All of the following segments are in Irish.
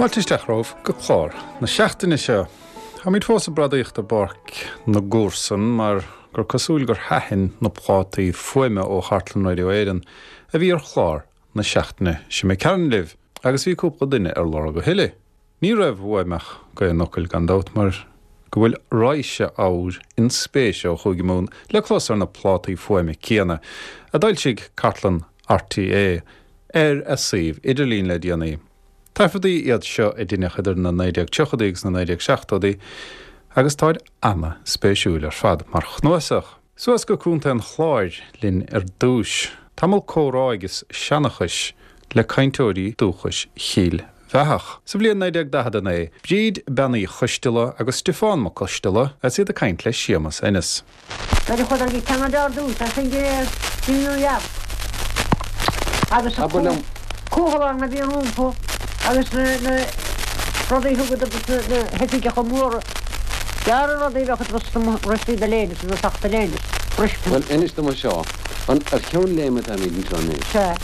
Fáilte isteach romhaibh go clár na seachtaine seo. Táimid fós ag bradaíocht i bPáirc na gComharsan mar gur cosúil gur thaitin na plátaí fuaime ó Chartlann Radio Éireann a bhí ar chlár na seachtaine seo imigh tharainn libh agus bhí cúpla duine ar lorg a thuilleadh. Ní raibh uaim ach gaoth an fhocail gan dabht mar go bhfuil raidhse ábhair inspéise ó Chúige Mumhan le clos ar na plátaí fuaime céanna a d'fhoilsigh Cartlann RTÉ ar a suíomh idirlín le déanaí. Taifeadtaí iad seo a deineadh idir na 1930idí agus na 1970idí agus táid ana-spéisiúil ar fad mar chnuasach. Suas go Contae an Chláir linn ar dtúis. Tamall comhrá agus seanchais le cainteoirí dúchais Chill Bheathach. Sa bhliain 1949, Bríd Bean Uí Choisteala agus Stiofán Mac Coisteala agus iad ag caint le Séamus Ennis. Nuair a chuadar go Ceanada ar dtús, as sin go New York agus an cúthalán a bhí rompu agus na rudaí a thugadar dos na hoifigeacha móra. Gearr an rudaí a bheadh ag rustí do léine is do soc do léine. Bhuel, inis dom seo, an ar cheann léime atáimid anseo anois? Sea.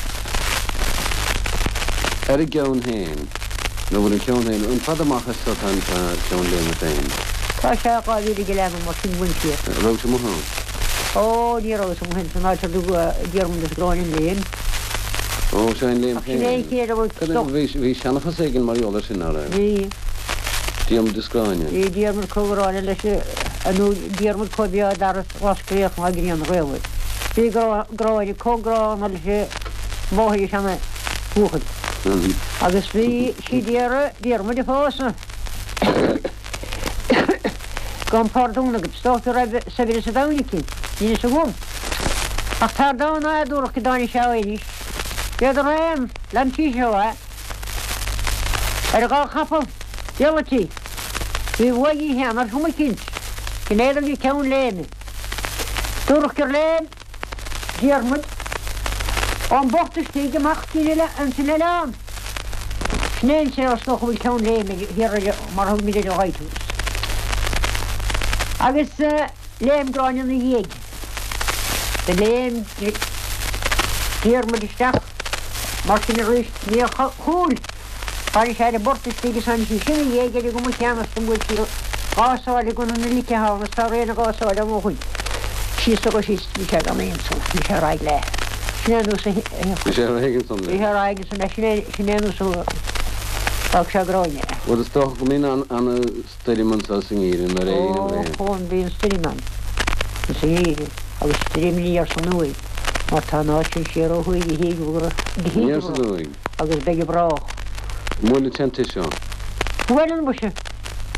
Ar an gceann féin, nó bhfuil an ceann féin, an fada amach as seo atá an ceann léime féin? Tá sé 2 mhíle go leath nó mar sin uainn siar. An raibh tú amuigh ann? Ó, ní rabhas amuigh ann san áit ar dtugadh Diarmuid is Gráinne an léim. Ó, seo an léim Ach sin é an féin. chéad a bhfuil Cad é, bhí, bhí seanchas éigin mar gheall air sin, ná raibh? Bhí. Diarmuid is Gráinne. Bhí Diarmuid chomh Gráinne leis an, nó Diarmuid chomh beo dar Ros Gréach ná grian ghaofar. Bhí Gráinne chomh gránna leis an mháthair seana bhuachaill. Agus bhí sí d'iarraidh Diarmuid a phósadh. Gabhaim pardún agat, is dócha go raibh saibhreas an domhain aici, níl fhios agam. Ach tar domhan nádúrach go dtáinig sé arís. Bhíodar aon, lean sí seo é. Ar a dhá chapall, diallaití. Bhí uaidh í féin ar chuma eicínt. Sin é do bhí ceann léime. Dúradh gur léim Diarmuid ón bport istigh amach ins an oileán. Sin é an saol is dócha a bhfuil ceann léime thiar ar mar a thugaimid ar an lighthouse. Agus léim Gráinne ina dhiaidh. Do léim Diarmuid isteach mar sin arís níor chúil. Tháinig sé ar an bport istigh is tháinig sí sin ina dhiaidh ar an gcuma chéanna is do bhuail sí dhá sáile go na lice ann is tá rian a dhá sáile ann ó shoin. Síos agus síos bhí sé gan aon solas, bhí sé ar aghaidh léi. Sin é an nós a Bhí sé ar aghaidh ansan léi. Bhí sé ar aghaidh ansan léi, sin é, sin é an nós a d'fhág sé Gráinne. Bhuel is dócha go mbíonn ana stoirm anso sa ngeimhreadh nuair a éiríonn an ghrian. Ó, bíonn stoirm ann sa ngeimhreadh agus stoirm aniar 's aduaidh mar tá an áit sin siar ó thuaidh go híogair Aniar 's aduaidh. agus beidh go brách. An mbuaileann sé an tigh seo? Buaileann muise.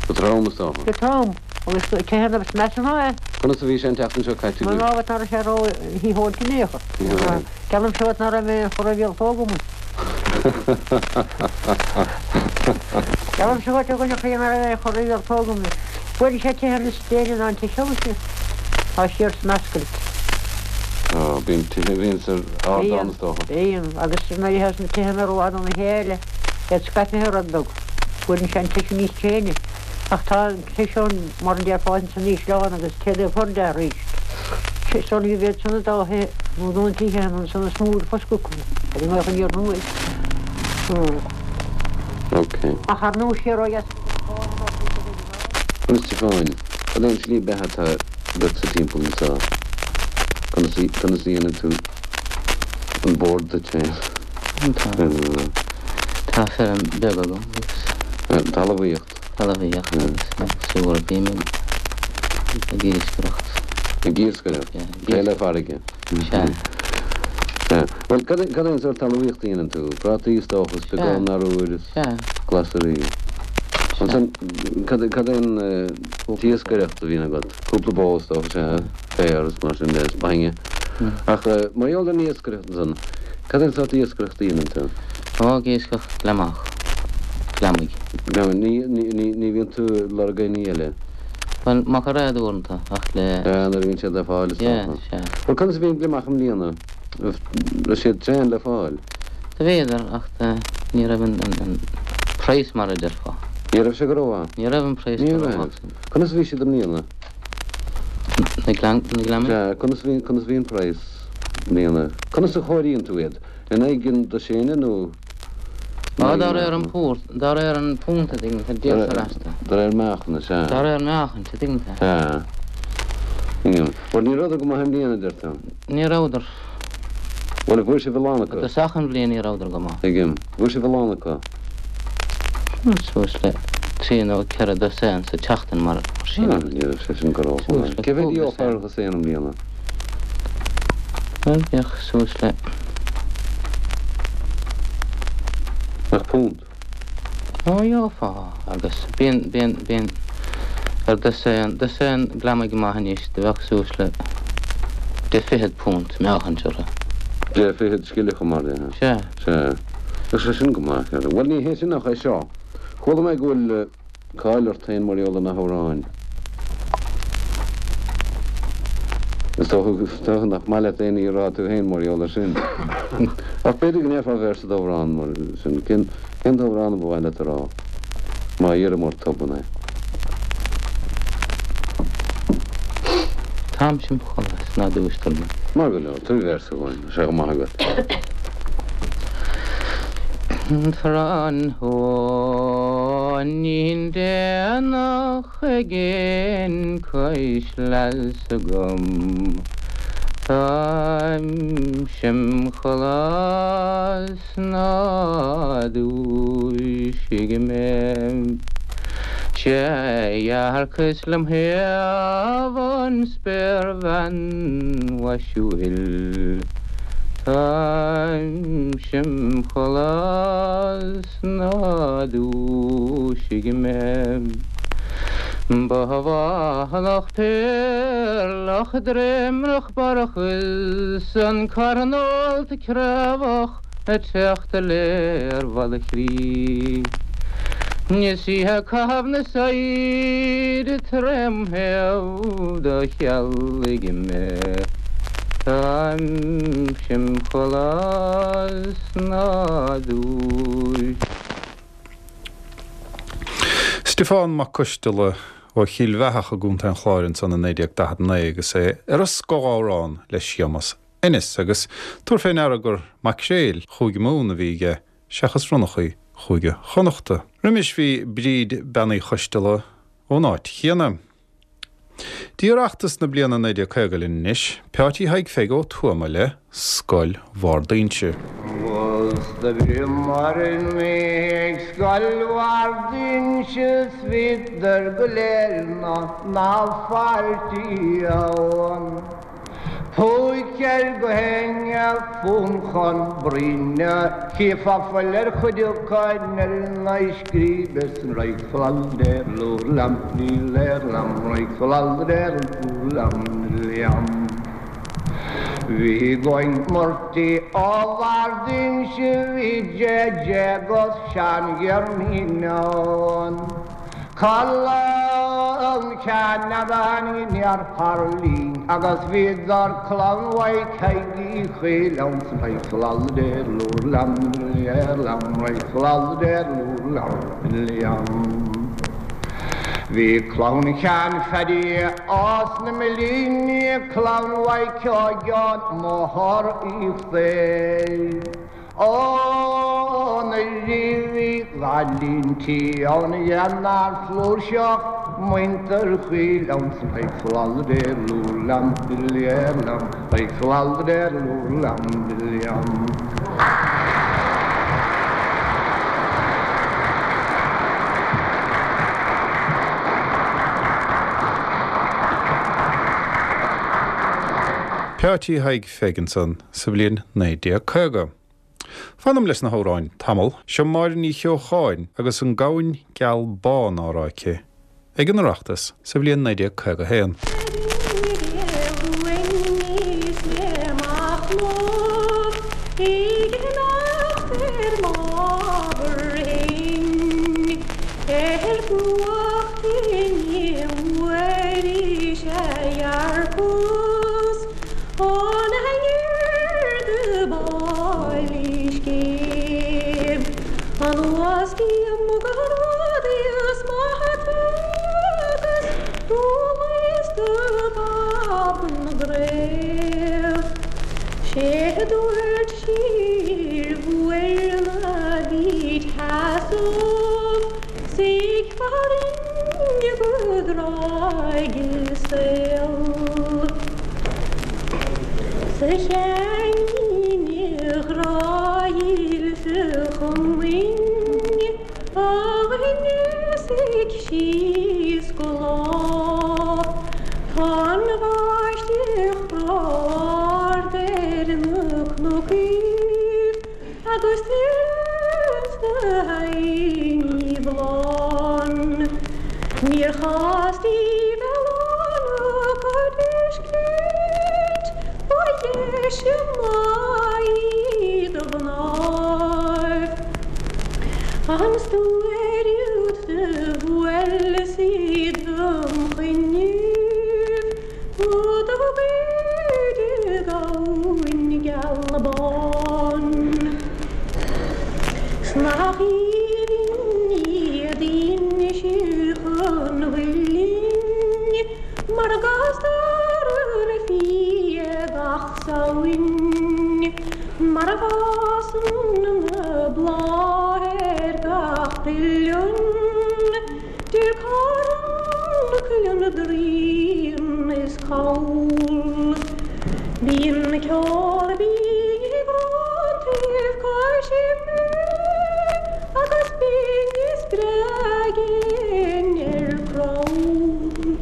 Go trom, is dócha. Go trom. Agus tithe na measa ná é. Conas a bhí sé an tseachtain seo caite agaibh? Mná ná raibh sé ró shítheoilte in aon chor. Geallaimse dhuit ná raibh mé aon chor a mhíoltóg amuigh. Geallaimse dhuit a dhuine chroí ná raibh aon chor a mhíoltóg amuigh. Buaileann sé tithe níos déine ná an tigh seo muise. Tá siar san ascaill. Ó, bíonn tithe a bhíonns ar ardán is dócha. Bíonn, agus nuair a théas na tithe rófhada óna chéile, iad scaipthe rud beag, buaileann sé an tigh seo níos tréine. Ach tá an tigh seo, mar a déarfá, ins an ísleán agus téad é chur de arís. Is dóigh liom iad san an dá thithe, nó na tithe ansan is mó a foscadh acu, ar an ngaoth aniar aduaidh. Ok. Ach ar ndóigh siar ó dheas. A Stiofáin, cad é an tslí beatha atá agatsa timpeall anseo? Conas a conas a dhéanann tú an bord duit féin? Tá tá feirm beag agam agus. Talmhaíocht. Talmhaíocht agus sa bhfuair bím ag iascaireacht. Ag iascaireacht? Yeah. Taobh le farraige? Sea. Sea. Bhuel, cad é cad é an sórt talmhaíocht a dhéanann tú? Prátaí is dócha, is beagán arbhair is. Sea. Glasraí. Ansan, cad é cad é an t-iascaireacht a bhíonn agat? Cúpla bó is dócha, sea, féar is mar sin de, is bainne. Ach mar gheall ar an iascaireacht ansan, cad é an sórt iascaireacht a dhéanann tú? Ó, ag iascach gliomach. Gliomaigh. Gliomaigh. Ní, ní, ní, ní bhíonn tú ag lorg aon ní eile? Bhuel, macairéad uaireanta, ach le. Sea, nuair a bhíonn siad le fáil is Yeah, dócha. sea. Bhuel, conas a bhí an gliomach i mbliana? Raibh siad tréan le fáil? Do bhíodar, ach ní raibh an praghas mar a déarfá. Ní raibh sé go rómhaith? Ní raibh an praghas Ní go raibh. rómhaith. Conas a bhí siad i mbliana? Na gliomaigh? Sea, conas a bhí, conas a bhí an praghas i mbliana? Conas a chomhairíonn tú iad? In aghaidh an dosaein nó? Á, dá réir an púrt, dá réir an púnt a dtuigeann tú, díoltar astu. Dá réir meáchain, is ea. Dá réir meáchain, a dtuigeann tú. Sea. Tuigim. Bhuel, ní rabhadar go maith i mbliana, a deir tú? Ní rabhadar. Bhuel, bhfuair sibh a lán acu? I dtosach an bhliain ní rabhadar go maith. Tuigim. Bhfuair sibh a lán acu? Suas le trí nó ceithre dosaen sa tseachtain mar sin. Ah, ní raibh sé sin go rómhaith. Cé mhéad a gheofá ar dhosaen i mbliana? Bhuel, bheadh suas le. Ach punt? Ó, gheofá, agus bíonn, bíonn, bíonn ar dosaen, dosaen glamaigh maith anois, do bheadh suas le deich fichead punt meáchaint orthu. Deich fichead scilleacha mar dhea. Sea. Sea. Bheadh sé sin go maith, ceart. Bhuel, ní hé sin ach é seo. Chuala mé go bhfuil cáil ort féin mar gheall ar na hamhráin. Is dócha nach maith leat aon ní a rá tú féin mar gheall air sin. Ach b'fhéidir go ndéarfá véarsa d'amhrán mar sin. Cén t-amhrán a ba mhaith leat a rá, má iarraim ort tobann é? Táimse im chodladh 's ná dúistear mé. Maith go leor, tabhair véarsa dhúinn, tá sé go maith agat. Tráthnóinín déanach ag cois leasa agam Táimse im chodladh 's ná dúisigh mé. 'Sé dhearcas lem thaobh an spéirbhean mhaisiúil Táimse im chodladh 's ná dúisigh mé. Ba bhánach péarlach dréimreach barrach is an carn ólta craobhach ag teacht i léir bhalla chrí. Is í ag caitheamh na saighde trém thaobh do chealaigh mé. Táimse im chodladh 's ná dúis. Stiofán Mac Coisteala ó Chill Bheathach i gContae an Chláir ansan i 1949 agus é ar a scothamhrán le Séamus Ennis, agus tabhair fé ndeara gur maicréil Chúige Mumhan a bhí aige seachas ronnachaí Chúige Chonnachta. Roimis bhí Bríd Bean Uí Choisteala ón áit chéanna. Dtí Oireachtas na bliana 1950 linn anois, Peáití Thaidhg Pheig Ó Tuama le Scoil Bharr d'Inse. Agus do bhíomar ag Scoil Bharr d'Inse 's bhíodar go léir 'na n-fáiltí ann. Púic air go héinne fún chun bruíne, chífeá fuil ar chuid acu ar na scríbe san roic flaldeir lúr lam ní léir lam roic flaldeir lúr lam liam. Bhí Goin Murty ó Bharr d'Inse bhí J.J. agus Seán Ghearmín ann. Clann Cheannabháin in iarthar linn agus bhíodar clann Mhaidhc Thaidhg Uí Chaoil ann san Bhí clann Sheáin Phaddy as na Millíní, clann Mhaidhc Sheáin Máthair Uí Chléir. Ó na ríbhí ghailintí ann dhéanar flúirseach muintir Chaoil ann san Peáití Thaidhg Pheig ansan sa bhliain 1950. Fanaim leis na hamhráin tamall. Seo Máire Ní Cheocháin agus An Gamhain Geal Bán á rá aici ag an Oireachtas sa bhliain 1951. sheasamh 's ag faire orainn go dtráigh saol. 'S a Sheáinín a ghrá dhílis a chomaoin a rinne ag síos go lá Tá an bháisteach ard ar na cnocaíbh agus tuireann sna haibhní bhláth. Níor chás daoibh oileán acu a d'fheiscint, ba dheise maith iad a mhnáibh. An stiúir úd do bhuail sí dom choinnibh nó do ghoid i gabhainn geal bán. 'S nach aoibhinn iad Inse Chon Mhuilinn mar a gcastar an fia gach Samhain, mar a bhfásann na blátha ar gach uilleann, Deir carn, cuileann, draoin is call. Bíonn ceol binn ag róntaibh cois ime agus binn is breá gin ar crann.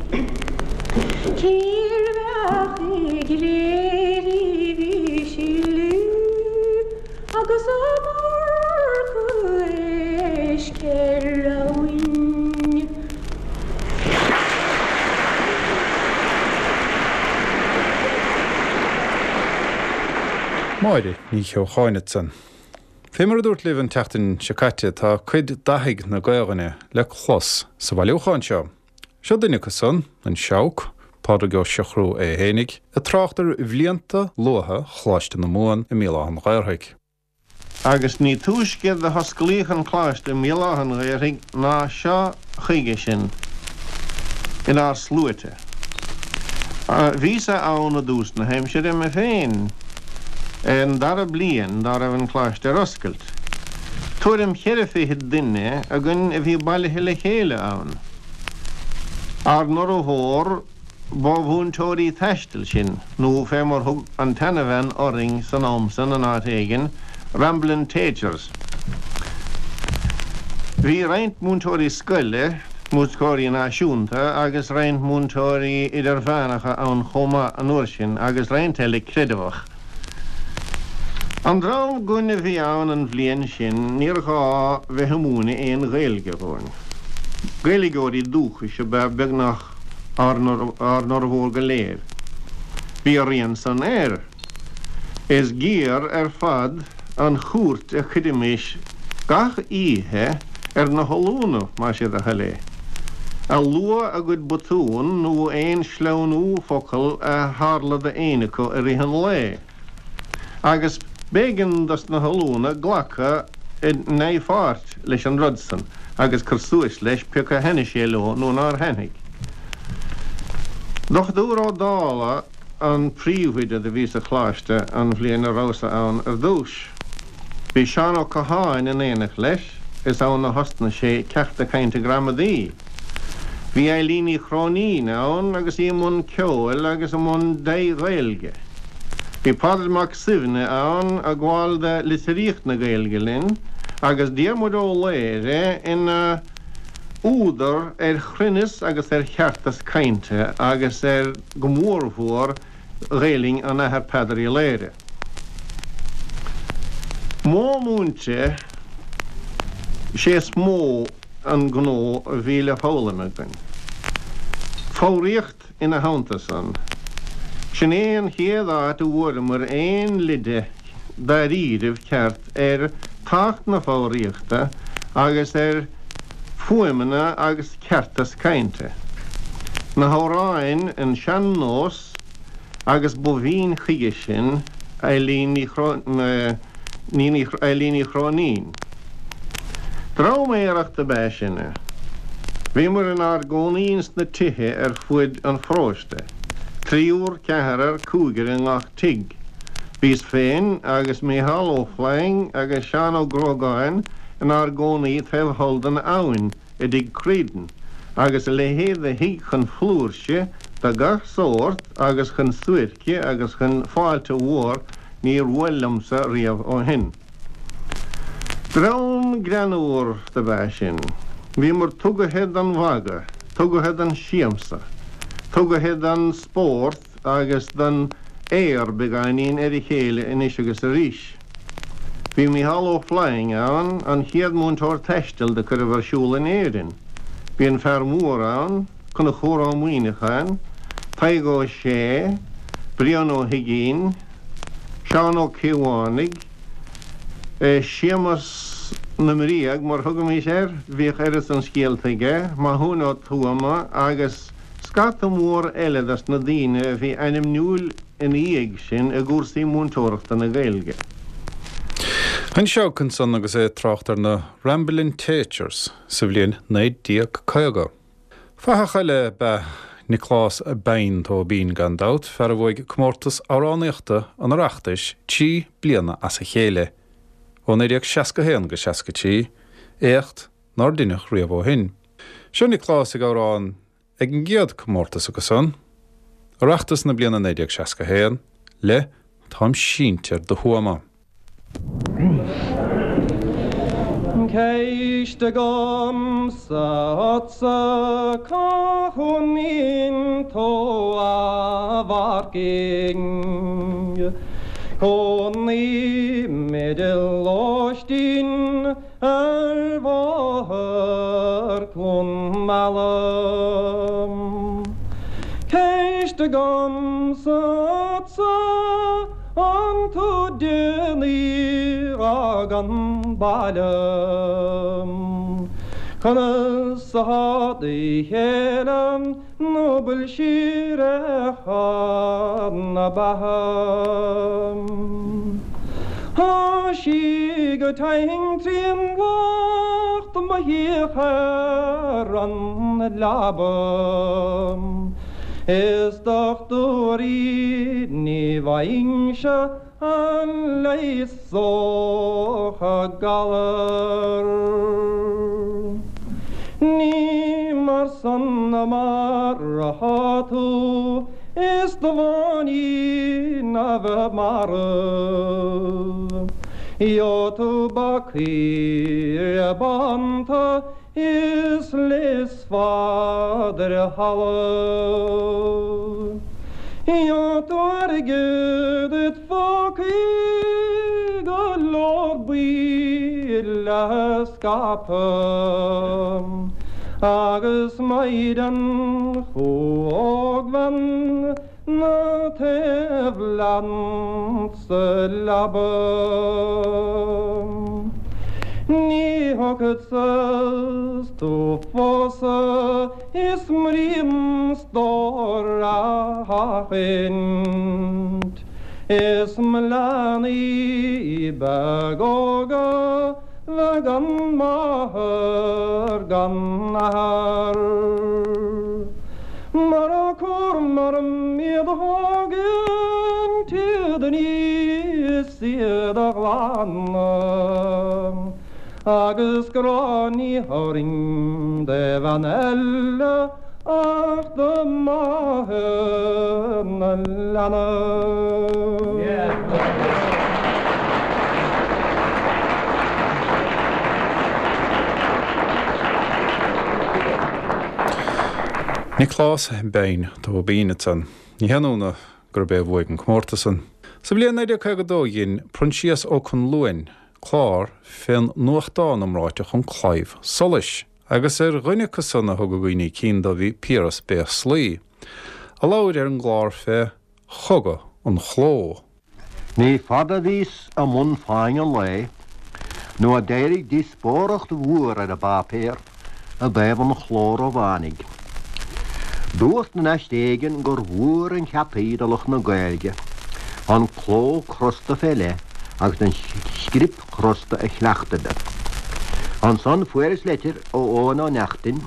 Cérbh i gCléirigh bhí sileadh agus iomarca éisc ar abhainn. Máire Ní Cheocháin ansan. Fé mar a dúrt libh an tseachtain seo caite tá cuid d'fhathaigh na Gaelainne le clos sa bhailiúchán seo. Seo duine acu san, an Seabhac, Pádraig Ó Siochrú é fhéinig, ag trácht ar bhlianta luatha Choláiste na Mumhan i mBéal Átha an Ghaorthaidh. Agus ní túisce do hosclaíodh an Coláiste i mBéal Átha an Ghaorthaidh ná seo chuige sinn inár sluaite. Bhíos-sa ann i dtús na haimsire mé féin, an dara bliain dá raibh an Coláiste ar oscailt. Tuairim cheithre fichid duine againn a bhí bailithe le chéile ann. Ár n-fhormhór ba mhúinteoirí taistil sinn, nó fé mar thug an tseanabhean orainn san am san in áit éigin, ramblin' taychers. Bhí roinnt múinteoirí scoile, múinteoirí náisiúnta agus roinnt múinteoirí idirmheánacha ann chomh maith an uair sin agus roinnt eile creideamhach. An dream againn a bhí ann an bhliain sin níor ghá bheith ag múineadh aon Ghaeilge dhúinn. Gaeilgeoirí dúchais ab ea beagnach ár bhformhór go léir. Bhí a rian san air. Is géar ar fad an chúirt a chuirimis gach oíche ar na hollúna, más é do thoil é, a luadh a gcuid botún nó aon sleamhnú focal a tharla d'éinne acu i rith an lae, agus b'éigean dos na hollúna glacadh i ndea-pháirt leis an rud san agus cur suas leis pé acu a thaitnigh sé leo nó nár thaitnigh. Dochtúir Ó Dálaigh an príomhoide do bhí sa Choláiste an bhliain a rabhas-sa ann ar dtúis. Bhí Seán Ó Catháin in éineacht leis, is ann a thosnaigh sé ceachta cainte gramadaí. Bhí Eilín Ní Chróinín ann agus í i mbun ceoil agus i mbun dea-Ghaeilge. Bhí Pádraig Mac Suibhne ann ag gabháil do litríocht na Gaeilge linn agus Diarmuid Ó Laoghaire ina údar ar chruinneas agus ar cheartas cainte agus ar, go mórmhór, Ghaelainn an Athar Peadar Uí Laoghaire. Modh múinte 'sé is mó an gnó a bhí le foghlaim againn. Foghraíocht ina theannta san. Sin é an chéad áit a bhfuaireamar aon leide dáiríribh ceart ar tábhacht na foghraíochta agus ar fuaimeanna agus ceartas cainte. Na hamhráin an sean-nós agus ba bhinn chuige sin Eilín Ní Eilín Ní Chróinín. Dream aerach dob ea sinne. Bhíomar inár gcónaí ins na tithe ar fuaid an pharóiste, triúr, ceathrar, cúigear i ngach tigh. Bhíos féin agus Mícheál Ó Floinn agus Seán Ó Gruagáin. inár gcónaí taobh thall den abhainn i dtigh Creedon, agus a leithéid de thigh chun flúirse de gach sórt agus chun suairce agus chun fáilte mhór níor bhuail liomsa riamh ó shin. Dream greannmhar dob ea sinn. Bhíomar tugaithe don mhagadh, tugaithe don siamsa, tugaithe don spórt agus don aor beagáinín ar a chéile anois agus arís. Bhí Mícheál Ó Floinn ann, an chéad múinteoir taistil do cuireadh ar siúl in Éirinn. Bhí an fear mór ann, Conchúr Ó Muíneacháin, Tadhg Ó Sé, Brian Ó hUiginn, Seán Ó Caomhánaigh, Séamus na mBréag, mar thugaimis air, bhíodh oiread san scéalta aige, Mathúin Ó Tuama agus scata mór eile dos na daoine a bhí ainmniúil ina dhiaidh sin i gcúrsaí múinteoireachta na Gaeilge. Anseo ansan agus é ag trácht ar na Ramblin' Teachers sa bhliain 1950. Fathach eile ab ea Nioclás Beain Tóibín, gan dabht, fear a bhuaigh comórtas amhránaíochta an Oireachtais 3 bliana as a chéile, ó 1961 go 63, éacht nár deineadh riamh ó shin. Seo Nioclás ag amhrán ag an gcéad comórtas acu san, Oireachtas na bliana 1961, le Táim sínte ar do thuama. Ceist agamsa ortsa cá chónaíonn tú a mhaircín? Cónaím i lóistín ar bhóthar Cluain Meala. Ceist agamsa ortsa an tú déanaí a fhág an baile? Conas atá do chéile nó bhfuil sí ar na beatha? Tá sí go tinn trín lucht mo shuíoch ar an leaba Is dochtúirí ní bhfaighinnse a leigheasódh a galar. Ní mar san mar atá tú is do bháinín a bheith marbh. Gheobhaidh tú bacaí bánta is leigheasfad ar thalamh. Gheobhaidh tú airgead id phócaí go leor buí le scaipeadh agus maighdean chomh ógbhean 'na taobh leat sa leaba. Ní thiocfadsa 's tú phósadh is m'aon stór a sheachaint, Is mo leanaí beag óga bheith gan máthair gan athair. Mura cúram orm iad a thógaint, iad a ní is iad a ghlanadh, agus grá ní thabharfainn do bhean eile ach do mháthair na leanbh. Nioclás Beain Tóibín ansan. Ní haon ionadh gurb é a bhuaigh an comórtas san. Sa bhliain 1952 dhein Proinsias Ó Conluain clár fén nuachtán iomráiteach An Claidheamh Soluis agus ar dhuine acu san a thugadh daoine cinn dó bhí Piaras Béaslaí, a labhair ar an gclár fé chogadh an chló. Ní fada a bhíos i mbun Fáinne an Lae nó a d'éirigh díospóireacht mhór ar an bpáipéar i dtaobh an chló Rómhánaigh. Dúrt in aiste éigin gur mhór an cheataí do lucht na Gaeilge an cló crosta fé leith agus an script chrosta a chleachtadh. Ansan fuaireas leitir ó Eoghan Ó Neachtain,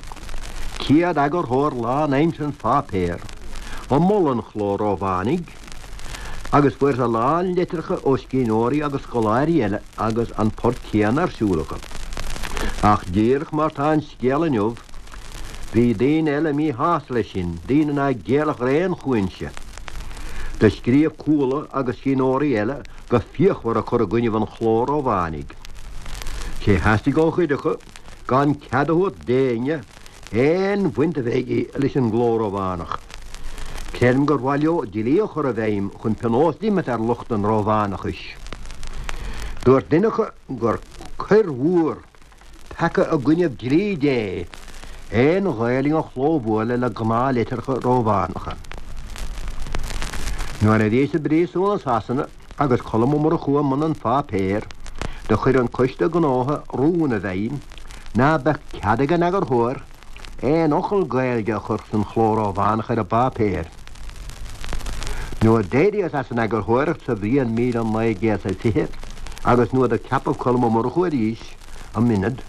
céad eagarthóir lán-aimseartha an pháipéir, ag moladh an chló Rómhánaigh, Agus fuaireas a lán litreacha ó scríbhneoirí agus scoláirí eile agus an port céanna ar siúl acu. Ach díreach mar tá an scéal inniu, bhí daoine eile míshásta leis sin, daoine ná géillfeadh ar aon chúinse. Do scríobh Cuala agus scríbhneoirí eile go fíochmhar ag cur i gcoinnibh an chló Rómhánaigh. Sé theastaigh ó chuid acu gan cead a thabhairt d'éinne aon bhaint a bheith aige leis an gcló Rómhánach. Creidim gur mhaith leo dlí a chur i bhfeidhm chun pionós d'imirt ar lucht an Rómhánachais. Dúirt duine acu gur coir mhór, peaca i gcoinnibh dlí Dé, aon Ghaelainn a chlóbhualadh le gnáth-litreacha Rómhánacha. Nuair a bhíos i bpríosún i Sasana agus Colm Ó Murchú i mbun an pháipéir, do chuir an Coiste Gnótha rún i bhfeidhm ná beadh cead ag an eagarthóir aon fhocal Gaeilge a chur san chló Rómhánach ar an bpáipéar. Nuair d'éiríos as an eagarthóireacht sa bhliain 1920 agus nuair do ceapadh Colm Ó Murchú arís i m'ionad,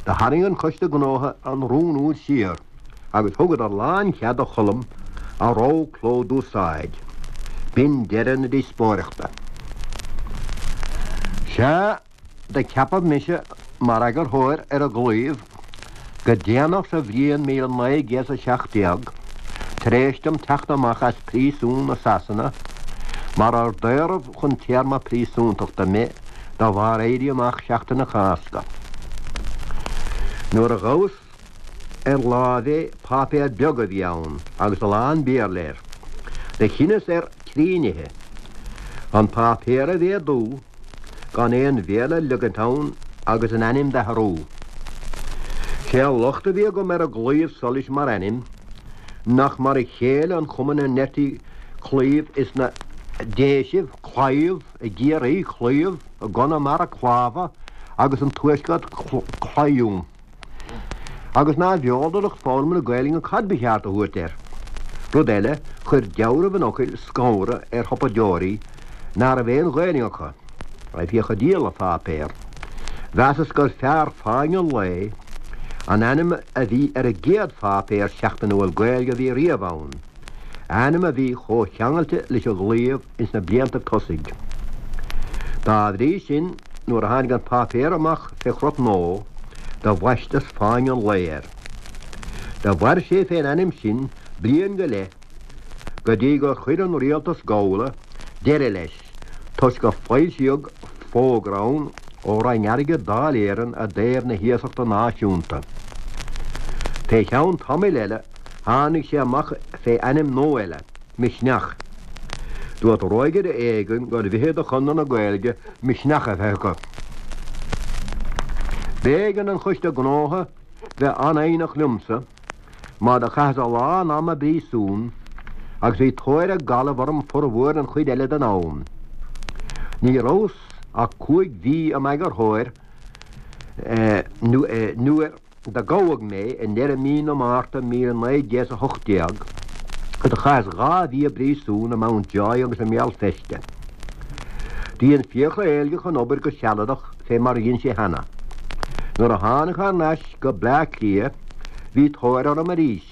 do tharraing an Coiste Gnótha an rún úd siar agus thugadar lán-chead do Cholm a rogha cló d'úsáid. B'in deireadh na díospóireachta. Sea. Do ceapadh mise mar eagarthóir ar an gClaíomh go déanach sa bhliain 1917, tar éis dom teacht amach as príosún i Sasana, mar ar daoradh chun téarma príosúntachta mé de bharr Éirí Amach Sheachtain na Cásca. Nuair a ghabhas ar láimh é, páipéar beag a bhí ann agus a lán Béarla air. Do chinneas ar thrí nithe, an páipéar a mhéadú, gan aon Bhéarla a leagaint ann agus an ainm d'athrú. Sé an locht a bhí agam ar an gClaíomh Solais mar ainm, nach mar a chéile an chuma 'na ndeirtí claíomh ins na Déisibh, claidheamh, i gCiarraí, claíomh, i gConamara, clámha, agus an Tuaisceart, claidheamh. Agus nárbh eol do lucht foghlama na Gaelainne cad ba cheart a thabhairt air. Rud eile, chuir deabhramh an fhocail scanradh ar shiopadóirí ná raibh aon Ghaelainn acu, a bhíodh ag díol an pháipéir. Mheasas gur fearr Fáinne an Lae an ainm a bhí ar an gcéad pháipéar seachtainiúil Gaeilge a bhí riamh ann, ainm a bhí chomh ceangailte leis an gClaíomh ins na bliantaibh tosaigh. Dá bhrí sin, nuair a tháinig an páipéar amach fé chrot nua, do bhaisteas Fáinne an Lae air. Do mhair sé fén ainm sin bliain go leith, go dtí gur chuir an rialtas gabhála deireadh leis, toisc gur foilsíodh fógra ann ó Roinn Airgid Dáil Éireann i dtaobh na hiasachta náisiúnta. Fé cheann tamaill eile tháinig sé amach fé ainm nua eile. Misneach. Dúirt rógaire éigin gur mhithid do Chonradh na Gaeilge misneach a bheith acu. B'éigean don Choiste Gnótha bheith an-fhoighneach liomsa mar do chaitheas a lán ama i bpríosún agus bhí tóir ag Gallaibh orm formhór an chuid eile den am. Ní rabhas ach 5 mhí i m'eagarthóir nuair Do gabhadh mé i ndeireadh mí na Márta 1918 agus do chaitheas 2 mhí i bpríosún i Mountjoy agus i mBéal Feirste. Do dhein Fiachra Éilgeach an obair go sealadach fé mar a dhein sé cheana. Nuair a tháinig thar n-ais go Bleá Cliath bhí tóir orm arís,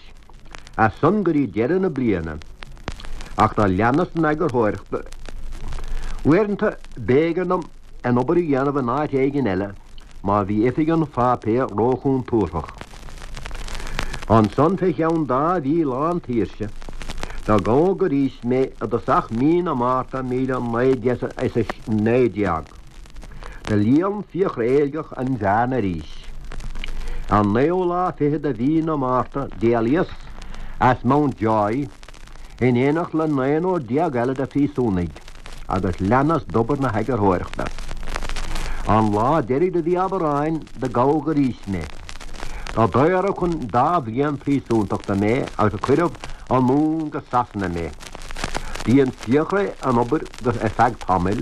as san go dtí deireadh na bliana, ach do leanas den eagarthóireacht. Uaireanta b'éigean dom an obair a dhéanamh in áit éigin eile, má bhí oifig an pháipéir róchontúrthach. Ansan fé cheann dá mhí lán tsaoirse, do gabhadh arís mé i dtosach mí na Márta 1919. Do líon Fiachra Éilgeach an bhearna arís. An naoú lá fichead de mhí na Márta d'éalaíos as Mountjoy, in éineacht le naonúr déag eile de phríosúnaigh, agus leanas d'obair na heagarthóireachta. An lá deiridh de mhí Aibreáin do gabhadh arís mé. Do daoradh chun dá bhliain phríosúntachta mé agus cuireadh anonn go Sasana mé. Do dhein Fiachra an obair ar feadh tamaill,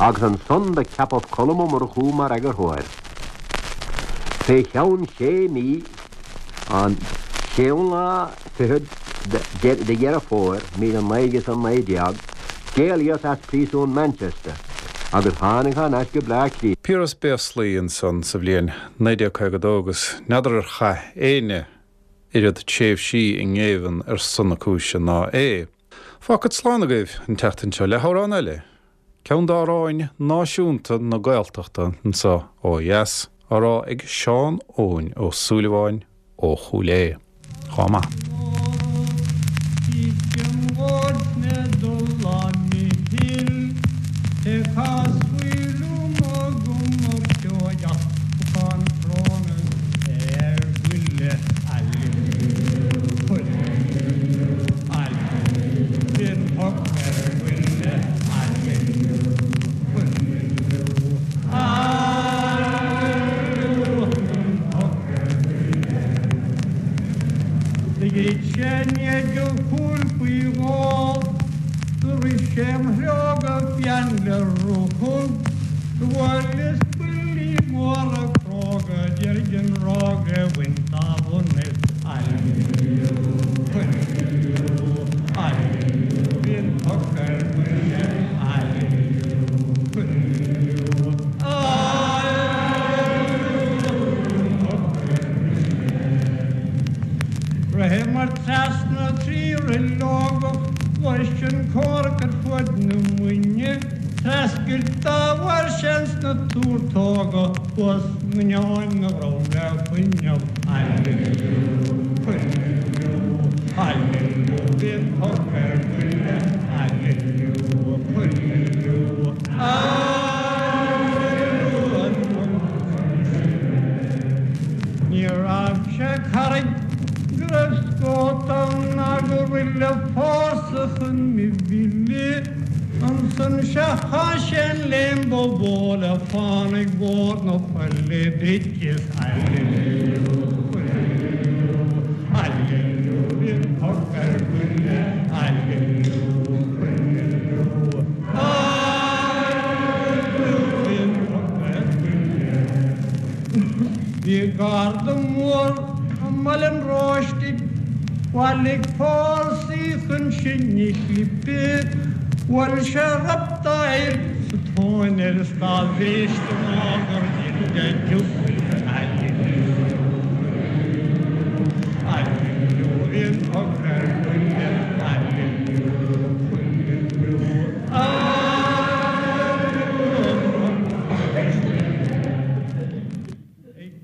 agus ansan do ceapadh Colm Ó Murchú mar eagarthóir. Fé cheann sé mí, An séú lá fichead de Dheireadh Fómhair 1919, d'éalaíos as príosún Manchester agus tháinig thar n-ais go Bleá Cliath. Piaras Béaslaí ansan sa bhliain 1952 agus n'fheadar ar chaith éinne oiread tréimhsí i ngéibheann ar son na cúise ná é. Fágfad slán agaibh an tseachtain seo le hamhrán eile, ceann d'amhráin náisiúnta na Gaeltachta anso ó dheas. Á rá ag Seán Eoin Ó Súilleabháin ó Chúil Aodha. Chomh maith. Do dhruid sé i ndiaidh a chúil faoi dhó, do rith sé im threo go fiáin le ruthag, do bhuaileas buillí móra cróga d'iarraidh an ráig a bhaint dá bhun is aililiú, aililiú, aililiú, bhí an poc ar buile, aililiú, aililiú, Ritheamar trasna 3 roileogach bhris an comhrac ar fuaid na Muine, Treascairt dá bharr sin sna túrtóga thuas nGneáin na dhrom le fuinneamh. Aililiú, aililiú, aililiú, bhí an poc ar buile, aililiú, aililiú, aililiú, an poc ar buile. Ní raibh sé carraig go raibh scót ann ná go raibh le fórsa chun mo mhilleadh. Ansan sea chaith sé an léim ba mhó le fánaidh mhór na faille duit is aililiú, aililiú, aililiú, bhí an poc ar buile, aililiú, aililiú, aililiú, bhí an poc ar buile. Bhí garda mór i mBaile an Róistigh, bhailigh fórsaí chun sinn a chlipeadh, bhuail sé ropp dá fhear sa tóin air is dá bhris ná gur dhein de giúmar.